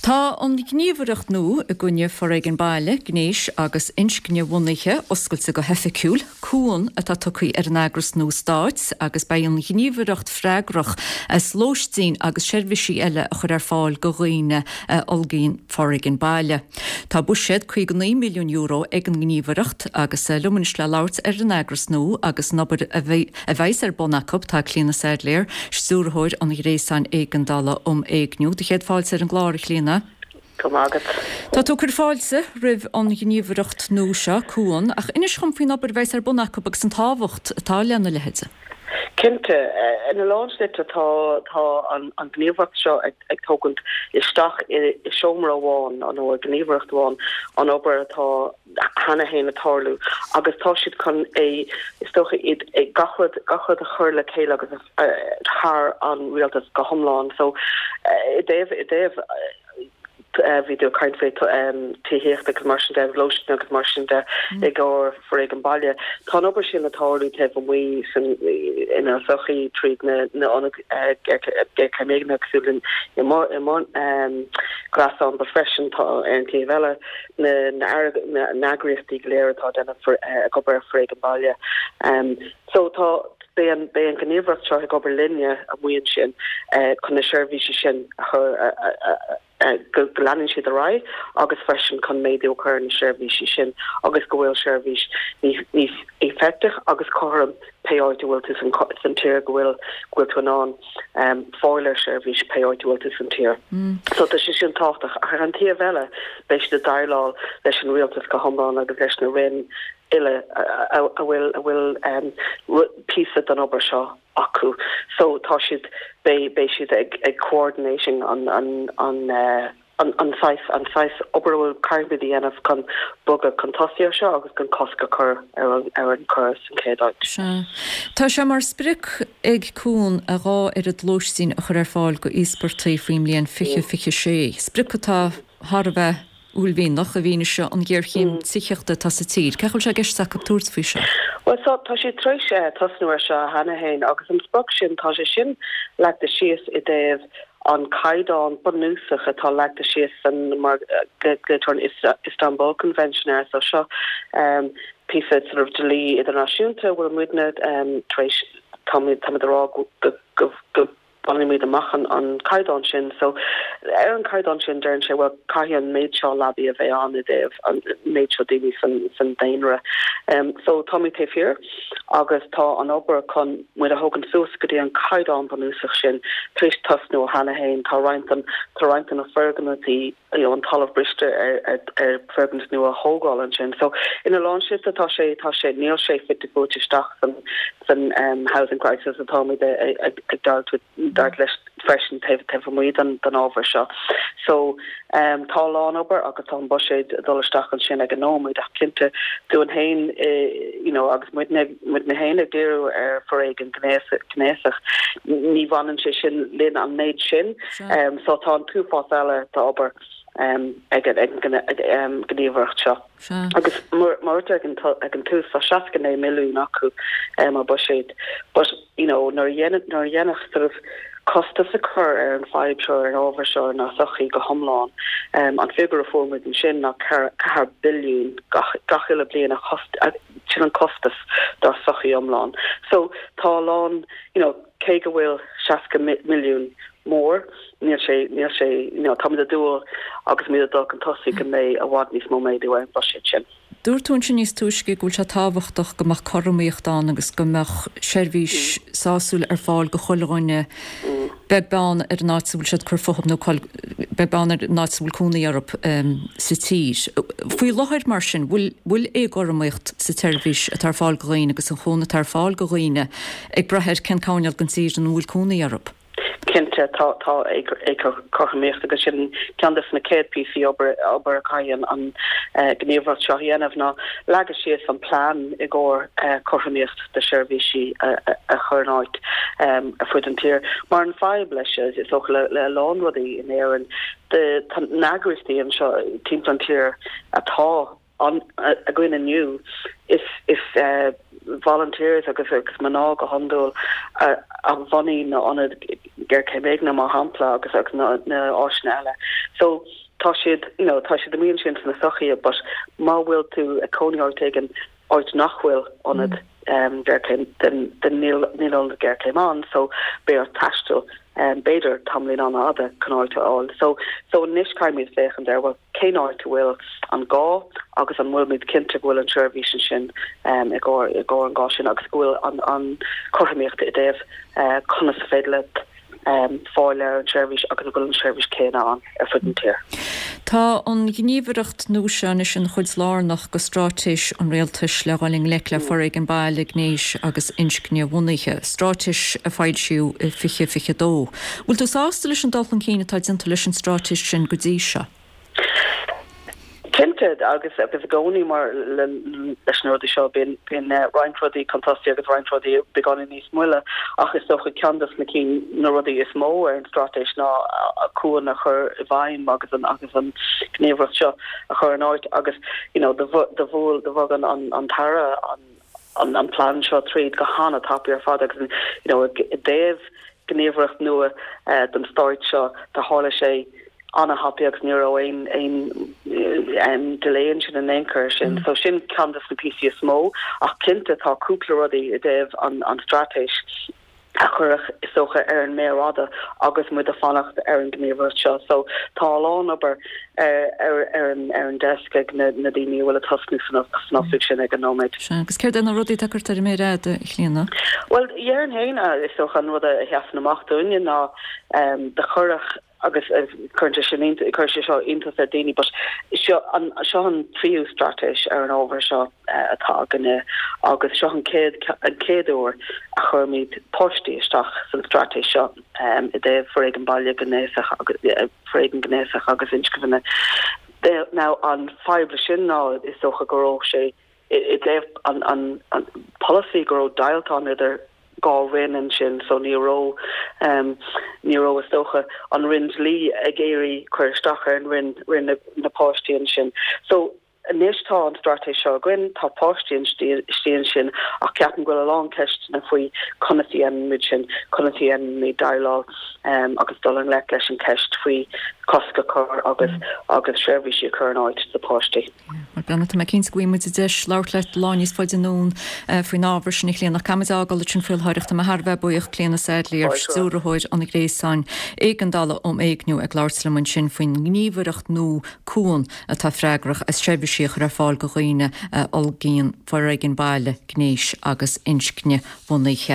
Tá an ghníomhaireacht nua i gcoinne foréigean baile, gnéis agus inscnebhunaithe oscailte go hoifigiúil. Cuan atá tugtha ar an eagras nua stáit agus beidh an ghníomhaireacht freagrach as lóistín agus seirbhísí eile a chur ar fáil go dhaoine a fhulgaíonn foréigean baile. Tá buiséad €59 milliún ag an ngníomhaireacht agus liom anois le labhairt ar an eagras nua agus an obair a a bheas ar bun acu, tá Clíona Saidléar, Stiúrthóir an Ghréasáin Éigeandála um Éigniú. Do chéad fáilte ar an gclár, a Chlíona. Go raibh maith agat. Tá tú ag cur fáilte roimh an ghníomhaireacht nua seo, Cuan, ach inis dhom faoin obair a bheas ar bun acu agus an tábhacht atá lena leithéid. Cinnte. Ina lán slite tá tá an ghníomhaireacht seo ag ag tógaint isteach i seomra amháin nó i ngníomhaireacht amháin an obair atá cheana féin ag tarlú agus tá siad chun é, is dócha, iad gach rud, gach rud a chur le chéile agus thar an rialtas go hiomlán. So i dtaobh, i dtaobh, bhí tú ag caint faoi tithíocht agus mar sin de, lóistín agus mar sin de i gcomhair foréigean baile. Tá an obair sin ag tarlú taobh amuigh san, inár sochaí tríd na, na ionaid géarchéime éignithe cosúil le i mo, i mo ghréasán but freisin tá ar an taobh eile, na n-eagraíochtaí go léir atá ag déanamh ag obair ar foréigean baile. So tá, beidh an, beidh an ghníomhaireacht seo ag obair linne amuigh ansin chun na seirbhísí sin a chur, go leanann siad ar aghaidh agus freisin chun méadú a chur ar na seirbhísí sin agus go bhfuil seirbhís níos éifeachtach agus cothrom pé áit a bhfuil tú san tír, go bhfuil, go bhfuil tú in ann. fáil ar seirbhís pé áit a bhfuil tú san tír. So tá sé sin tábhachtach. Ach ar an taobh eile, beidh siad ag déileáil leis an rialtas go hiomlán agus leis na roinn uile a bhfuil a bhfuil píosa den obair seo acu. So tá siad, beidh beidh siad ag ag coordinating an an an an saghas an saghas obair a bhfuil caithfimid a dhéanamh chun bogadh chun tosaigh ar seo agus chun cosc a chur ar an ar an choir san chéad áit. Sea. Tá sé mar sprioc ag Cuan a dhá oiread lóistín a chur ar fáil go íospartaigh faoin mbliain 2026, sprioc atá thar a bheith uaillmhianach i bhfianaise an ghéarchéim tithíochta atá sa tír. Cén chaoi a bhfuil sé i gceist acu tabhairt faoi seo? Bhuel, so, tá siad tar éis tosnú ar seo cheana féin agus an sprioc sin, tá sé sin leagtha síos i dtaobh an caighdeán bunúsach atá leagtha síos san mar glaoitear an Istanbul Convention air so seo píosa sort of dlí idirnáisiúnta a bhfuil muidne tar éis táimid táimid a rá go go go bainimid amach an an caighdeán sin so ar an caighdeán sin deireann sé bhuel caithfidh an méid seo leabaí a bheith ann i dtaobh an méid seo daoine san san daonra so táimid taobh thiar. agus tá an obair chun muid a thógaint suas go dtí an caighdeán bunúsach sin tar éis tosnú cheana féin. Tá roinnt den, tá roinnt de na foirgnimh, you know, an talamh briste ar, ar, ar foirgnimh nua a thógáil ansin. So, ina lán slite tá sé, tá sé, níl sé fite fuaite isteach san, san um, housing crisis atáimid ag, ag, ag deighilt, deighilt leis freisin taobh, taobh amuigh den, den ábhar seo. So, Tá a lán obair agus tá an buiséad ag dul isteach ansin ag an nóiméad ach cinnte dúinn féin you know agus muidne muidne féin ag díriú ar foréigean gnéasach ní bhaineann sé sin linn an méid sin so tá an t-uafás eile d'obair ag an gníomhaireacht seo. Agus mar a dúirt ag an tús tá 69 milliún acu mar buiséad but you know nuair a dhéanann nuair a dhéanfadh sort of costas a chur ar an fadhb seo ar an ábhar seo inár sochaí go hiomlán an figiúr a fuair muid ansin ná 4 billiún gach gach uile bliain a chost sin an costas dár sochaí iomlán so tá a lán you know cé go bhfuil 60 milliún mór níl sé níl sé you know táimid ag dúil agus muid ag dul chun tosaigh go mbeidh i bhfad níos mó méadú ar an bhuiséad sin. Dúirt tú ansin níos túisce go bhfuil sé tábhachtach go mbeadh cothromaíocht ann agus go mbeadh seirbhís sásúil ar fáil go chuile dhuine, beag beann ar an áit a bhfuil siad ag cur fúthu nó beag beann ar an áit a bhfuil cónaí orthu sa tír. Faoi láthair, mar sin, bhfuil bhfuil éagothromaíocht sa tseirbhís atá ar fáil go dhaoine agus an chúnamh atá ar fáil go dhaoine ag brath ar cén coirnéal den tír ina bhfuil cónaí orthu? Cinnte, tá, tá éagothromaíocht agus sin ceann de na chéad píosaí obair, obair a chaithfidh an ghníomhaireacht seo a dhéanamh ná leagadh síos an plean i gcomhair cothromaíocht de sheirbhísí a chur in áit ar fud an tír. Mar an fadhb leis, is dócha le a lán rudaí in Éirinn, tá na heagraíochtaí anseo timpeall an tír atá ann againn inniu, is, is. volunteers agus agus mná go hiondúil a a bhunaigh na ionaid géarchéim éignithe mar shampla agus agus na na áiseanna eile. So tá siad you know tá siad amuigh ansin sna sochaí but má bhfuil tú ag cónaí áit éigin áit nach bhfuil ionad géarchéim then then níl níl ionad géarchéim ann so beidh ort taisteal b'fhéidir tamaillín an-fhada chun áit a fháil. So so anois caithfimid féachaint ar bhuel cén áit a bhfuil an gá agus an bhfuilimid cinnte go bhfuil an tseirbhís ansin i gcomhair i gcomhair an gá sin agus go bhfuil an an chothromaíocht i dtaobh conas is féidir leat fáil ar an tseirbhís agus an bhfuil an tseirbhís céanna ann ar fud an tír. Tá an ghníomhaireacht nua seo anois ina chuid lárnach de straitéis an Rialtais le dhul i ngleic le foréigean baile, gnéis agus inscne-bhunaithe, straitéis a foilsíodh i 2022. Bhfuil tú sásta leis an dul chun cinn atá déanta leis an straitéis sin go dtí seo? Cinnte, agus agus i gcónaí mar leis na rudaí seo bíonn bíonn roinnt rudaí chun tosaigh agus roinnt rudaí beagáinín níos moille ach is dócha ceann dos na cinn na rudaí is mó ar an straitéis ná Cuan a chur i bhfeidhm agus an agus an ghníomhaireacht seo a chur in áit agus you know do do bhuail do bhog an an an tAire an an an plean seo tríd go hana-tapaidh ar fad agus you know i dtaobh gníomhaireacht nua don stáit seo do tharla sé ana-thapaidh agus ní raibh aon aon delay ansin in aon chor sin. So sin ceann de na píosaí is mó ach cinnte tá cúpla rudaí i dtaobh an an straitéis a chuirfeadh is dócha ar an méar fhada agus muid ag fanacht ar an gníomhaireacht seo. So tá a lán obair ar ar ar an ar an desk ag na na daoine a bhfuil ag tosnú san san oifig sin ag an nóiméad. Sea, agus céard é na rudaí atá curtha ar an méar fhada, a Chlíona? Bhuel, dhéarfainn féin, is dócha an rud a sheasann amach dúinne ná do cuireadh agus cuireann sé sin cuireann sé seo iontas ar daoine but seo an seo an tríú straitéis ar an ábhar seo atá againne agus seo an chéad an chéad uair a chuirimid páistí isteach san straitéis seo i dtaobh foréigean baile gnéasach agus foréigean gnéasach agus inscne. Now an fadhb le sin ná is dócha go raibh sé i dtaobh an an polasaí go raibh deighilt ann idir 2 roinn ansin so ní raibh ní raibh is dócha an roinn dlí ag iarraidh cur isteach ar an roinn roinn na páistí ansin. So anois tá an straitéis seo againn, tá páistí istigh ansin ach ceapaim go bhfuil a lán ceisteanna faoi conas a dhéanaimid sin, conas a dhéanaimid déileáil agus dul i ngleic leis an cheist faoi cosc a chur agus agus seirbhísí a chur in áit do pháistí. Bhuel, tá mé cinnte go bhfaighidh muid deis labhairt leat lá níos faide anonn faoin ábhar sin, a Chlíona. Ach caithfimid a fhágáil ansin faoi láthair. Tá mé thar a bheith buíoch, Clíona Saidléar, Stiúrthóir an Ghréasáin Éigeandála um Éigniú, ag labhairt liom ansin faoin ngníomhaireacht nua Cuan atá freagrach as seirbhísí a chur ar fáil do dhaoine a fhulaingíonn foréigean baile, gnéis agus inscne-bhunaithe.